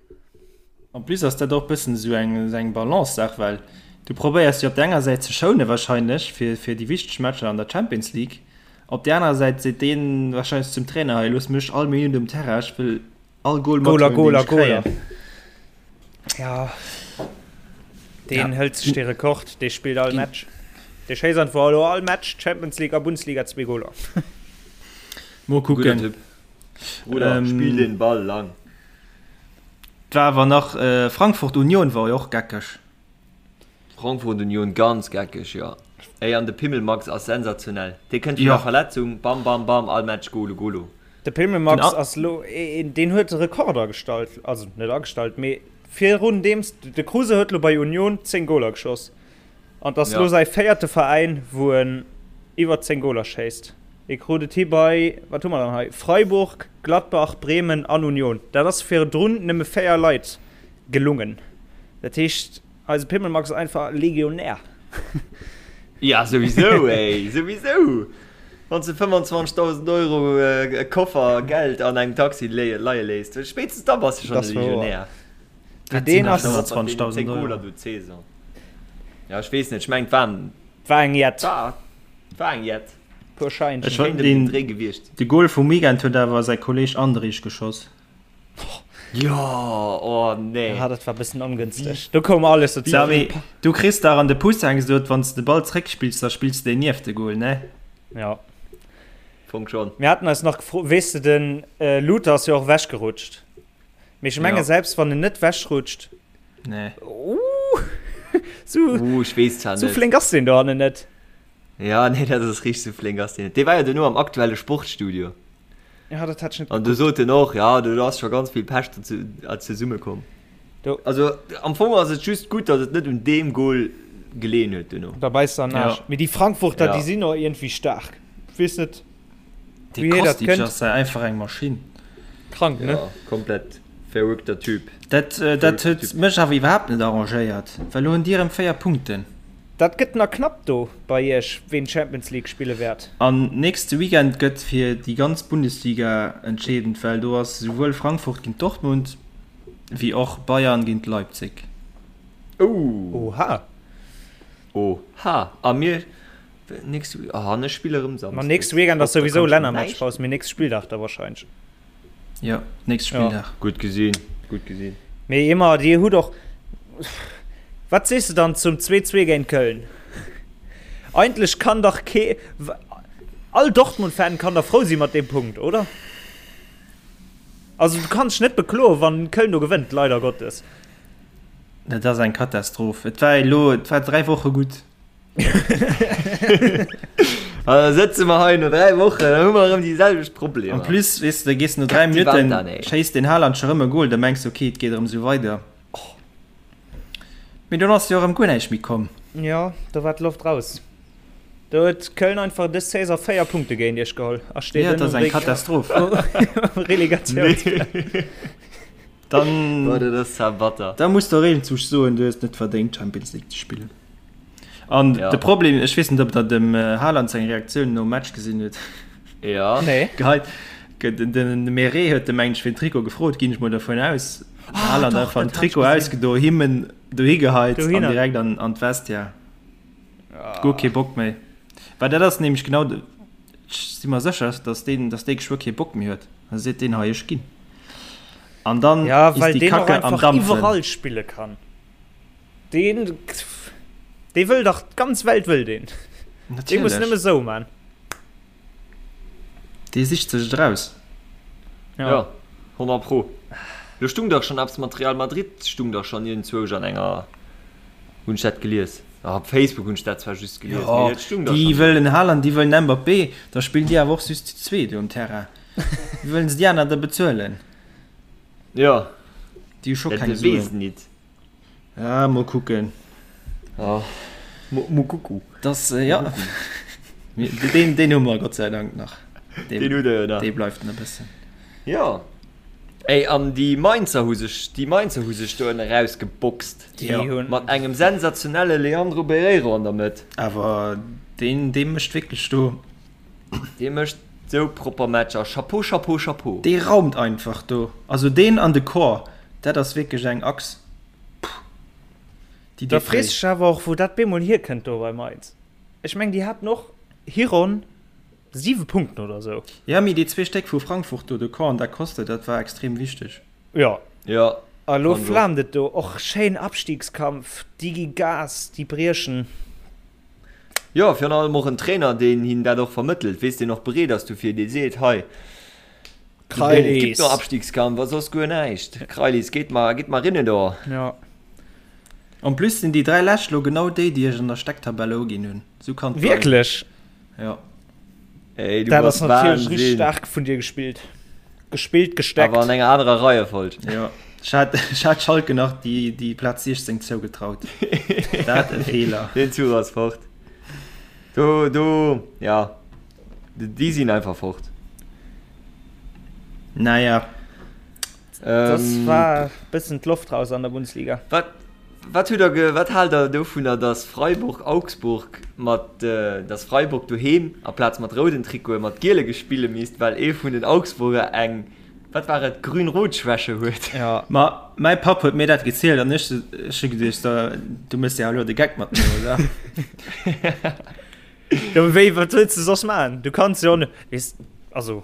Speaker 3: En plus ass dat och bëssen esou eng eng Balance-Saach, well du probéiers jo op der enger Säit ze schoune wahrscheinlech fir fir déi wichteg Matcher an der Champions League, op där anerer Säit seet deen wahrscheinlech zum Trainer, hei looss mech all Minutt um Terrain, ech wëll all Goal
Speaker 4: Goler,
Speaker 3: mathuelen, deen
Speaker 4: Goler,
Speaker 3: ech kréien.
Speaker 4: Goler. Ja, deen
Speaker 3: Ja.
Speaker 4: hëlt sech dee Rekord, dee spillt all Match. Dee schéisst einfach elo all Match, Champions League a Bundesliga, zwee Goler.
Speaker 3: Mol
Speaker 5: Gudder
Speaker 3: kucken.
Speaker 5: Typ. Bruder,
Speaker 3: Ähm,
Speaker 5: spill den Ball lang.
Speaker 3: Et war awer nach Frankfurt Union war jo och geckeg.
Speaker 5: Frankfurt Union ganz geckeg, jo. Ey an de Pimmelmax ass sensationell. Dee kënnt vun der Verletzung, bam bam bam, all Match Golo Golo.
Speaker 4: De Pimmelmax ass lo een, deen huet Rekord agestallt, also net agestallt, mee virun deems de Kruse huet lo bei Union 10 Goler geschoss an 't ass lo säi véierte Veräin wou en iwwer 10 Goler schéisst. Hie krut et hi bei, wat hu mer dann hei, Freiburg, Gladbach, Bremen an Union. Dat ass virdrun nëmme 4 Leit gelungen. Dat heescht, eise Pimmelmax ass einfach Legionär.
Speaker 5: Ja, souwisou, ey, souwisou! Wann s de 25.000 Euro e Koffer Geld an engem Taxi leie léisst, spéitstens da bass de schonn e Legionär.
Speaker 4: Wat sinn
Speaker 5: dat 25.000 Euro? Ja, ech weess net, ech mengen, et waren.
Speaker 4: War eng Jett.
Speaker 5: War eng Jett.
Speaker 4: Puer Scheinchen.
Speaker 3: Ech fannen den Dréi gewiescht. De Goal vum Weekend huet awer säi Kolleg Andrich geschoss.
Speaker 5: Jo, oh nee.
Speaker 4: Ja, dat war bëssen ongënsteg. Do koum alles
Speaker 3: dozou. Samy, du kriss dach an de Pousseng gesot, wann s de de Ball zréckspills, da spills de deen nieft de Goal, ne?
Speaker 4: Ja.
Speaker 5: Fong schon.
Speaker 4: Mir haten eis nach gefrot, weess de, den Luther ass jo och ewechgerutscht. Mee ech menge selbst wann en net wechrutscht.
Speaker 3: Nee.
Speaker 4: Uh, sou,
Speaker 5: uh, ech weess zwar net.
Speaker 4: Sou flénk ass deen dohannen net.
Speaker 5: Ja, nee, dat ass richteg, sou flénk ass deen net. Dee war jo duerno am aktuelle Sportstudio.
Speaker 4: Ja, dat hat ech net
Speaker 5: An du sot en och, ja, do ass scho ganz vill Pech zesumme komm.
Speaker 4: Do.
Speaker 5: Also am Fong ass et just gutt, datt et net un deem Goal geleeën huet duerno.
Speaker 4: Da beisst se an den Aarsch.
Speaker 3: Ja.
Speaker 4: Mee déi Frankfurter,
Speaker 5: Ja.
Speaker 4: déi sinn och iergendwéi staark. Weess net.
Speaker 3: Dee Kostic ass einfach eng Maschinn.
Speaker 4: Krank, ne?
Speaker 5: Ja, komplett verrückter Typ.
Speaker 3: Dat, dat huet mech awer iwwerhaapt net arrangéiert, well elo hunn déi erëm 4 Punkten.
Speaker 4: Dat gëtt nach knapp do bei iech, ween d'Champions League spille wäert.
Speaker 3: An nächste Weekend gëtt fir déi ganz Bundesliga entscheedend, well do ass esouwuel Frankfurt géint Dortmund wéi och Bayern géint Leipzig.
Speaker 5: Ouh!
Speaker 4: Oha!
Speaker 5: Oha! A mir Nächste Week, ah, an ech spille rëm
Speaker 4: Samsdes. Ma nächste Weekend ass souwisou Lännermatchpaus, mee nächste Spilldag da wahrscheinlech.
Speaker 3: Jo, nächste Spilldag.
Speaker 5: Ja. Gutt gesinn, gutt gesinn.
Speaker 4: Mee ëmmer, Dir hutt och, wat sees de dann zum 2-2 géint Köln? Eigentlech kann dach kee, all Dortmund-Fan kann da frou si mat deem Punkt, oder? Also du kanns dech net bekloen, wann Köln do gewënnt, leider Gottes.
Speaker 3: Dat ass eng Katastroph. Et war elo, et war 3 Woche gutt.
Speaker 5: An da sëtze mer hei no 3 Wochen, da hu mer erëm déi selwecht Problemer.
Speaker 3: En plus, weess de, da gees no 3 Minutten, schéisst den Haaland scho rëm e Goal, da mengs de, ok, et geet erëm esou weider. Mee dunn ass jo erëm guer näischt méi komm.
Speaker 4: Jo, do war d'Loft raus. Do huet Köln einfach dës Saison 4 Punkte géint iech geholl a steet
Speaker 3: Jo, dat ass eng Katastroph.
Speaker 4: Um Relegatiounsplatz.
Speaker 3: Dann,
Speaker 5: Boah, dat ass zwar batter.
Speaker 3: Da muss der Reenzug soen, du hues net verdéngt Champions League ze spillen. An
Speaker 5: ja.
Speaker 3: de Problem, ech weess net, ob der dem äh, Haaland seng Reaktioun nom Match gesinn huet.
Speaker 5: Ja.
Speaker 4: Nee.
Speaker 3: Geheit, den, den Meret huet de mengt fir den Trikot gefrot, ginn ech mol davon aus.
Speaker 4: Ah,
Speaker 3: Haaland
Speaker 4: doch,
Speaker 3: einfach den
Speaker 4: dat hat ich
Speaker 3: Trikot
Speaker 4: gesinn.
Speaker 3: ausgedo, himmen dohi geheit an
Speaker 4: Dohinner.
Speaker 3: direkt an, an d'Vestiaire.
Speaker 4: Ah.
Speaker 3: Guer kee Bock méi. Well dat ass nämlech genau de, ech si mer sécher, dass deen, dass dee geschwë kee Bock méi huet. Da seet deen hei, ech ginn. An dann
Speaker 4: Ja,
Speaker 3: ist
Speaker 4: well
Speaker 3: die
Speaker 4: deen och
Speaker 3: Kacke am
Speaker 4: einfach
Speaker 3: Dampfen.
Speaker 4: iwwerall spille kann. Deen, dee wëll dach, d'ganz Welt wëll deen. Dee muss
Speaker 3: Natierlech.
Speaker 4: nëmme sou man.
Speaker 3: Dee sicht sech et eraus.
Speaker 4: Ja.
Speaker 5: Ja, 100 pro. Do stung dach schon eppes mat Real Madrid, stung dach schon iergendzwousch an enger, hunn ech dat gelies. Ah, op Facebook hunn ech dat zwar just gelies,
Speaker 3: Jo,
Speaker 5: mee et stung dach
Speaker 3: déi
Speaker 5: schon do.
Speaker 3: wëllen Haaland, déi wëllen Mbappé, da spillen déi awer och just zu zweet do um Terrain. Wéi wëllen se déi aner da bezuelen?
Speaker 5: Jo,
Speaker 3: Déi hu scho
Speaker 5: dat
Speaker 3: keng
Speaker 5: weess
Speaker 3: Suen.
Speaker 5: nit.
Speaker 3: Ja, mol kucken.
Speaker 5: Ah, mo, mo kucku.
Speaker 3: Das, äh, ja. Den, den hu mer Gott sei Dank nach.
Speaker 5: Den, den hutt der jo nach.
Speaker 3: Dee bleift nach e bëssen.
Speaker 5: Ja. Ey, an déi Mainzer hu sech, déi Mainzer hu sech do ënne rausgeboxt.
Speaker 4: Déi hunn.
Speaker 5: Mat engem sensationelle Leandro Barreiro an der Mëtt.
Speaker 3: Awer deen, dee mécht wierklech do.
Speaker 5: Dee mécht sou propper Matcher. Chapeau, Chapeau, Chapeau.
Speaker 3: Dee raumt einfach do. Also deen an de Corps, dat ass wierklech eng Achs, puh, déi
Speaker 4: Da
Speaker 3: deet
Speaker 4: frees
Speaker 3: wéi.
Speaker 4: dech awer och, wou dat bemol hierkënnt do bei Mainz. Ech meng, déi haten och Hiron 7 Punkten oder sou.
Speaker 3: Ja, mee déi zwee Stéck vu Frankfurt do, de Corps an Da Costa, dat war extrem wichteg.
Speaker 4: Jo.
Speaker 5: Jo.
Speaker 4: A lo
Speaker 5: Kann och.
Speaker 4: flaamt et do. Och schéin Abstiegskampf, déi gi Gas, déi briechen.
Speaker 5: Jo, virun allem och en Trainer, deen hinnen dat och vermëttelt, weess, deen och bereet ass dofir, dee seet, hei. Et gibt no Abstiegskampf, a soss guer näischt. Krailis, geet mar, geet mar rinne do.
Speaker 4: Ja.
Speaker 3: En plus sinn déi 3 lescht lo genau déi, déi ech an der Stecktabelle uginn hunn. Sou kann et bleiwen.
Speaker 4: Wierklech?
Speaker 3: Ja.
Speaker 5: Ey, du
Speaker 4: Dat
Speaker 5: bass
Speaker 4: ass natierlech richtig
Speaker 5: Wahnsinn.
Speaker 4: staark vun dir gespillt. Gespillt, gesteckt.
Speaker 5: Awer an enger anerer Reiefolg.
Speaker 3: Ja. Ech hat, ech hat Schalke nach déi, déi Plaz 16 zougetraut. Dat e Feeler.
Speaker 5: Den Zuch ass fort. Do, do, ja. Déi sinn einfach fort.
Speaker 3: Naja.
Speaker 4: Das war bëssen d'Loft raus an der Bundesliga.
Speaker 5: Wat, wat hutt der ge, wat haalt der dovunner, dass Freiburg Augsburg mat, dass Freiburg doheem aplaz mat rouden Trikote mat giele gespille misst, well ee vun den Augsburger eng, wat war et, grün-rot-Schwäche huet?
Speaker 4: Ja.
Speaker 3: Ma mäi Papp huet mir dat gezielt an ech, ech hu geduecht, du méchs jo elo de Geck mat mir, oder?
Speaker 4: Ja, mee wéi, wat wëlls de soss maachen? Du kanns jo net, weess, also.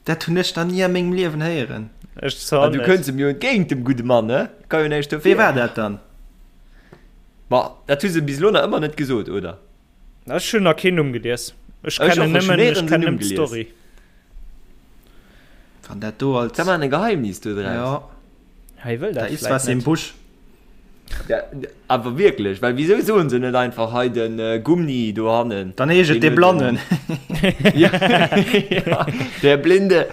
Speaker 3: Dat hunn ech nach ni a mengem Liewen héieren.
Speaker 4: Ech zwar
Speaker 5: Ah, du
Speaker 4: net.
Speaker 5: kënns em jo entgéint, dem gudde Mann, ne? Ka jo näischt dofir.
Speaker 3: Wee war dat dann?
Speaker 5: Ma, dat hu se bis elo nach ëmmer net gesot, oder?
Speaker 4: Ech hunn nach keen Numm gelies. Ech
Speaker 5: Ech och,
Speaker 4: kennen
Speaker 5: ech hunn
Speaker 4: nëmmen, ech
Speaker 5: néierens en
Speaker 4: kennen
Speaker 5: Numm
Speaker 4: nëmmen
Speaker 5: gelies.
Speaker 4: d'Story.
Speaker 3: Wann dat do als.
Speaker 5: Da maachen e Geheimnis do draus.
Speaker 3: Ja.
Speaker 4: Hei wëll
Speaker 3: Da
Speaker 4: dat
Speaker 3: is
Speaker 4: vläit
Speaker 3: was im
Speaker 4: net.
Speaker 3: Busch.
Speaker 5: Ja, awer wierklech, well wisou soen se net einfach hei den Gumni dohannen?
Speaker 3: Dann heescht et dee Blannen.
Speaker 5: Ja, ja, der Blinde.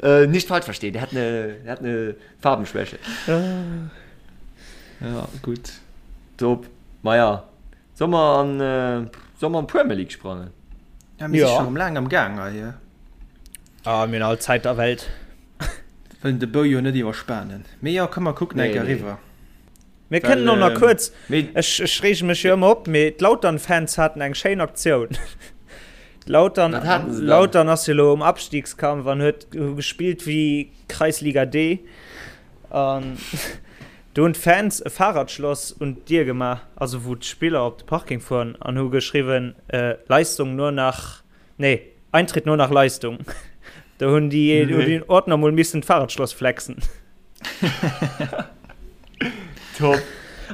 Speaker 5: Äh, nicht falsch verstehen, der hat ne, der hat ne Farbenschwäche.
Speaker 3: Ja, gutt.
Speaker 5: Top. Maja, soll mer an, äh, soll mer an d'Premier League sprangen?
Speaker 3: Ja, mir si
Speaker 4: Ja.
Speaker 3: scho rëm laang am Gaang hei.
Speaker 4: Ah, mir hunn all Zäit der Welt.
Speaker 3: Wëllen de Bou jo net iwwerspanen. Mee jo, komm mer kucken eng
Speaker 5: Nee,
Speaker 3: Kéier
Speaker 5: nee.
Speaker 3: eriwwer.
Speaker 4: Mir
Speaker 5: Well,
Speaker 4: kënnen och nach
Speaker 5: ähm,
Speaker 4: kuerz,
Speaker 5: mee
Speaker 4: ech, ech reege mech jo ëmmer op, mee d'Lautern-Fans haten eng schéin Aktioun. Lautern,
Speaker 5: Wat haten se dann?
Speaker 4: Lautern ass jo elo um Abstiegskampf an huet hu gespillt wéi Kreisliga D. An do hunn d'Fans e Fahrradschloss un d'Dier gemaach, also wou d'Spiller op de Parking fueren, an hu geschriwwen, äh, Leistung nur nach Nee, Eintritt nur nach Leistung. Do hunn déi nee. den Ordner mol missen d'Fahrradschloss flexen.
Speaker 5: Top.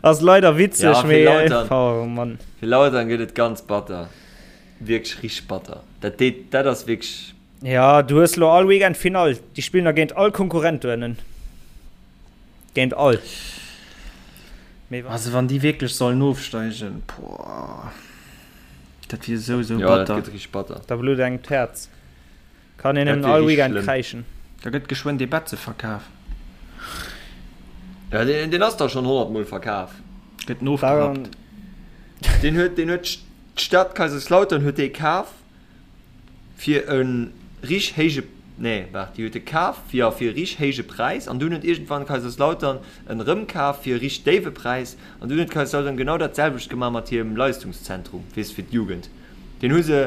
Speaker 4: Ass leider witzeg,
Speaker 5: ja,
Speaker 4: mee
Speaker 5: Lautern,
Speaker 4: oh, Mann.
Speaker 5: Fir Lautern gëtt et ganz batter. Wierklech richteg batter. Dat deet, dat ass wierklech.
Speaker 4: Ja, du hues lo all Weekend Finall. Déi spillen da géint all Konkurrent do ënnen. Géint all. Mee
Speaker 3: Also wann déi wierklech sollen ofsteigen, boah. Dat wier sou sou
Speaker 5: Ja, dat
Speaker 3: batter.
Speaker 5: gëtt richteg batter.
Speaker 4: Da blutt engem d'Häerz. Kann een
Speaker 5: Dat
Speaker 4: nëmmen
Speaker 5: wier
Speaker 4: all
Speaker 5: richteg
Speaker 4: Weekend
Speaker 5: schlëmm.
Speaker 4: kräischen.
Speaker 3: Da gëtt geschwënn dee Betze verkaf.
Speaker 5: Ja, deen, deen ass da schonn 100 Mol verkaf.
Speaker 3: Gëtt en ofgerappt.
Speaker 5: Deen huet, deen huet d'Stad Kaiserslautern huet dee kaf. fir e rich héije, nee waart, déi huet e kaf, jo, fir e rich héije Präis an dunn huet iergendwann Kaiserslautern en erëmkaf fir e rich déiwe Präis an dunn huet Kaiserslautern genau dat selwecht gemaach mat hirem Leistungszentrum, weess fir d'Jugend. Deen hu se,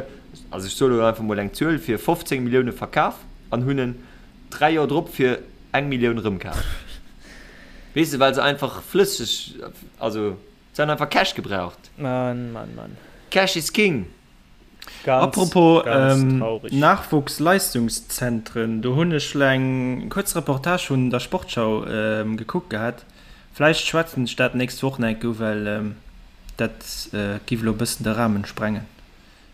Speaker 5: also ech soe lo einfach mol eng Zuel, fir 15 Millioune verkaf an hunn en 3 Joer drop fir eng Millioun erëmkaf. Weess de, well se einfach flësseg, also se han einfach Cash gebraucht.
Speaker 4: Mann, Mann, Mann.
Speaker 5: Cash is king!
Speaker 4: Ganz,
Speaker 3: Apropos
Speaker 4: ganz
Speaker 3: ähm,
Speaker 4: traurig.
Speaker 3: Nachwuchsleistungszentren, do hunn ech eng kuerz Reportage vun der Sportschau ähm, gekuckt gehat. Vläicht schwätzen ech dat nächst Woch nach eng Kéier u, well ähm, dat äh, giff elo e bëssen de Rahmen sprengen.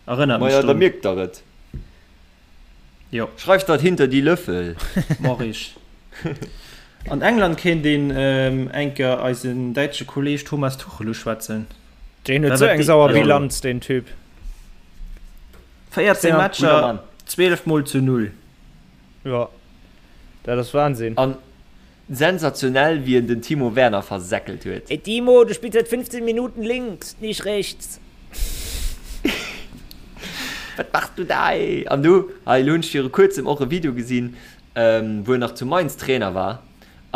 Speaker 3: Erënnert mech
Speaker 5: Maja, da
Speaker 3: drun.
Speaker 5: mierkt der et.
Speaker 3: Jo.
Speaker 5: Schreift dat hinter die Löffel.
Speaker 3: Mach ich. An England kéint een ähm, eng Kéier eisen däitsche Kolleg Thomas Tuchel uschwätzen.
Speaker 4: Deen huet sou eng sauer Bilanz, deen Typ.
Speaker 3: 14 Matcher, 12 mol zu 0.
Speaker 4: Jo, dat ass Wahnsinn.
Speaker 5: An sensationell wéi en den Timo Werner versäckelt huet.
Speaker 1: Ey Timo, du spielst seit 15 Minuten links, nicht rechts.
Speaker 5: Wat machst du da ey? An du, hei elo hunn ech viru kuerzem och e Video gesinn, wou en nach zu Mainz Trainer war.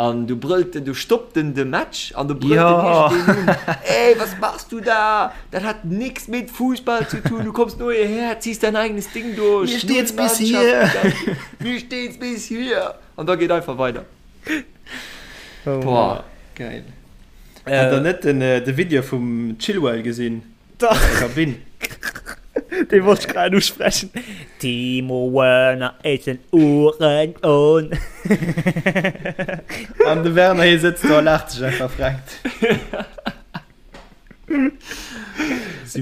Speaker 5: An du brëllt en, du stoppt en de Match an du brëllt en iergendeen un, Ey, was machst du da? Dat hat nix mit Fußball zu tun, du kommst nur hierher, ziehst dein eigenes Ding durch.
Speaker 3: Mir steht's bis hier.
Speaker 5: Mir steht's bis hier. An da geet einfach weider.
Speaker 4: Oh,
Speaker 5: Boah.
Speaker 3: Geil. Hat der net den, de Video vum Chilwell gesinn?
Speaker 4: Dach.
Speaker 3: Aus der Kabinn.
Speaker 4: Dee wollt ech grad usprechen.
Speaker 1: Timo Werner is ein Uhrensohn.
Speaker 3: An de Werner hie sëtzt do a laacht sech einfach frenkt.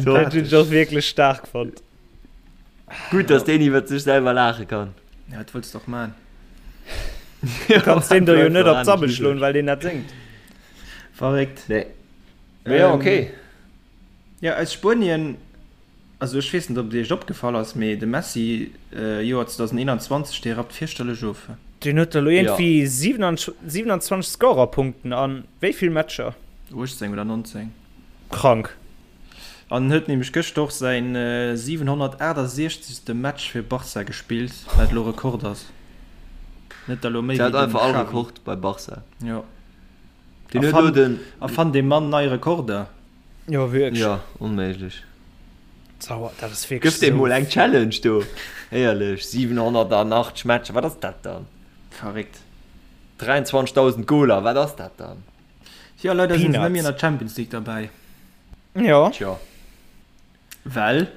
Speaker 4: Dat hunn ech och wierklech staark fonnt.
Speaker 5: Gutt, dass deen iwwert sech selwer laache kann.
Speaker 3: Ja, wat wëlls de och man?
Speaker 4: Du kanns deem do jo net op d'Sabbel schloen, well deen dat séngt.
Speaker 3: Verréckt.
Speaker 5: Nee. Mee jo, okay.
Speaker 3: Jo, aus Spuenien, also ech weess net, ob et iech opgefall ass, mee de Messi, Joer 2021, dee rappt fierchterlech of.
Speaker 4: Deen huet elo iergendwéi 27 Scorerpunkten a wéi vill Matcher?
Speaker 3: 18 oder 19.
Speaker 4: Krank.
Speaker 3: An en huet nämlech gëschter och säin 768. Match fir Barca gespillt, wat elo Rekord ass. Net der elo méi
Speaker 5: wéi
Speaker 3: den
Speaker 5: einfach all
Speaker 3: Xavi.
Speaker 5: Rekord bei Barca.
Speaker 3: Jo.
Speaker 5: Deen huet elo den.
Speaker 3: Erfannt dee Mann nei Rekorder.
Speaker 4: Jo, wierklech.
Speaker 5: Jo, onméiglech.
Speaker 4: Sauer, dat ass wierklech
Speaker 5: Gëff deem
Speaker 4: esou
Speaker 5: mol eng Challenge do. Éierlech, 780 Matcher, wat ass dat dann?
Speaker 3: Verréckt.
Speaker 5: 23.000 Goler, wat ass dat dann?
Speaker 3: Jo, leider sinn se net méi an der Champions League derbäi.
Speaker 4: Jo.
Speaker 5: Tjo.
Speaker 3: Well?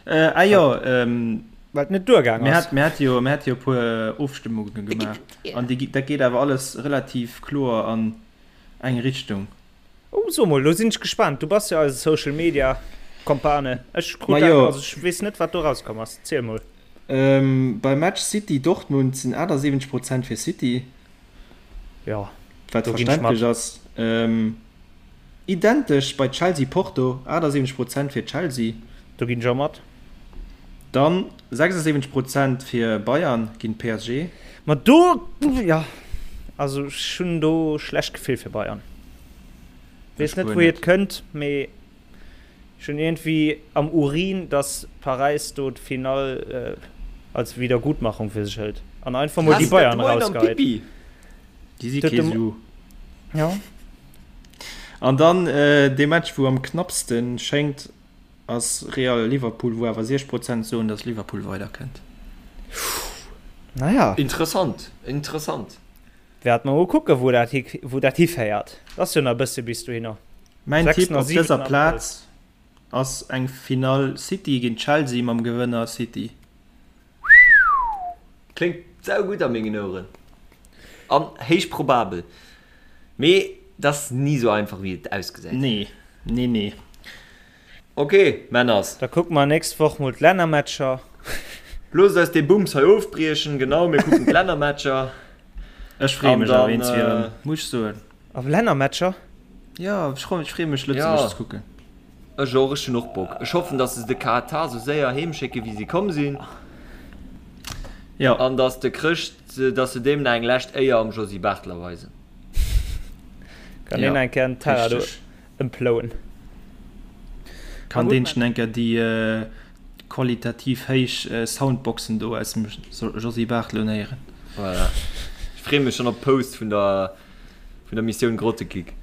Speaker 3: Ah jo,
Speaker 4: Well et net duergaang ass.
Speaker 3: Mir hate jo, mir hate jo e puer Ofstëmmunge gemaach an déi, dat geet awer alles relativ kloer an eng Richtung.
Speaker 4: Oh, so mol, lo sinn ech gespaant. Du bass jo eise Social Media Kompane. Ech krut dat, also ech weess net, wat do rauskomm ass. Ziel mol.
Speaker 3: Beim Match City Dortmund sinn 78 Prozent fir City.
Speaker 4: Jo,
Speaker 3: wat verständlech ass. Identesch bei Chelsea Porto, 78 Prozent fir Chelsea.
Speaker 4: Do ginn ech och mat.
Speaker 3: Dann 76 Prozent fir Bayern géint PSG.
Speaker 4: Ma do, jo, also ech hunn do schlecht Gefill fir Bayern. Weess net wouhier et kënnt, mee Ech hunn iergendwéi am Urin, dass Paräis do d'Finall als Wiedergutmachung fir sech hëlt an einfach mol déi Bayern erausgeheit.
Speaker 3: Déi si kee Su.
Speaker 4: Jo.
Speaker 3: An dann dee Match wou am knappste schéngt ass Real Liverpool, wou awer 60 Prozent soen, dass Liverpool weiderkënnt.
Speaker 4: Naja.
Speaker 5: Interessant, interessant.
Speaker 4: Wäerte mer mol kucken, wou dat wou dat hiféiert. Ass jo nach e bësse bis dohinner.
Speaker 3: Mäin
Speaker 4: 6
Speaker 3: Tipp
Speaker 4: a
Speaker 3: op
Speaker 4: 7
Speaker 3: dëser
Speaker 4: Abrëll.
Speaker 3: Plaz ass eng Finall City géint Chelsea mam Gewënner City.
Speaker 5: Kléngt saugutt a mengen Oueren an héich probabel, mee et ass ni sou einfach wéi et ausgesäit.
Speaker 3: Nee, nee, nee.
Speaker 5: Ok, Männers.
Speaker 4: Da kucke mer nächst Woch mol d'Lännermatcher.
Speaker 5: Loosst eis dee Bums hei ofbriechen, genau, mir kucken d'Lännermatcher.
Speaker 3: Ech freeë
Speaker 5: An
Speaker 3: mech awer
Speaker 5: dann,
Speaker 3: eens erëm, muss ech soen.
Speaker 4: Op Lännermatcher?
Speaker 3: Jo, ech freeë mech Lëtzebuerg ze kucken.
Speaker 5: Ech och, ech hunn och Bock. Ech hoffen, dass se de Katar sou séier heem schécke wéi se komm sinn.
Speaker 3: Jo.
Speaker 5: An dass de Chrëscht, dass se deem nach eng lescht Éier am Josy Barthel erweisen.
Speaker 4: Kann deen eng Kéier den Teller do ëmplouen.
Speaker 3: Kann deen schon eng Kéier déi qualitativ héich Soundboxen do aus dem Josy Barthel unhéieren.
Speaker 5: Voilà. Ech freeë mech schonn op d'Post vun der Vun der Missioun Grottekick.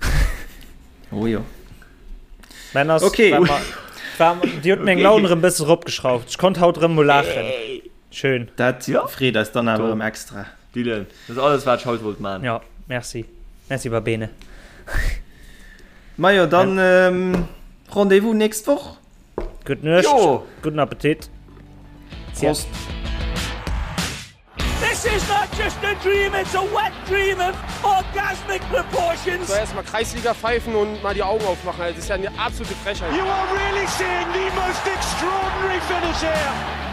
Speaker 3: Oh jo.
Speaker 4: Männer,
Speaker 3: Okay.
Speaker 4: war ma, war, Dir hutt meng Laun erëm bësse ropgeschrauft. Ech konnt haut erëm mol laachen. Schön.
Speaker 3: Dat
Speaker 5: Ja.
Speaker 3: freet eis dann awer
Speaker 5: Top.
Speaker 3: erëm extra.
Speaker 5: Dylan, dat ass alles wat ech haut wollt man.
Speaker 4: Ja, merci. Merci, Babene.
Speaker 3: Majo, dann ähm, Rendez-vous nächst Woch.
Speaker 4: Gutt Nuecht.
Speaker 5: Jo.
Speaker 4: Gudden Appetit.
Speaker 3: Prost.
Speaker 1: This is not just a dream, it's a wet dream of orgasmic proportions.
Speaker 2: Soll erstmal Kreisliga pfeifen und mal die Augen aufmachen. Das ist ja eine absolute Frechheit.
Speaker 1: You are really seeing the most extraordinary finish here.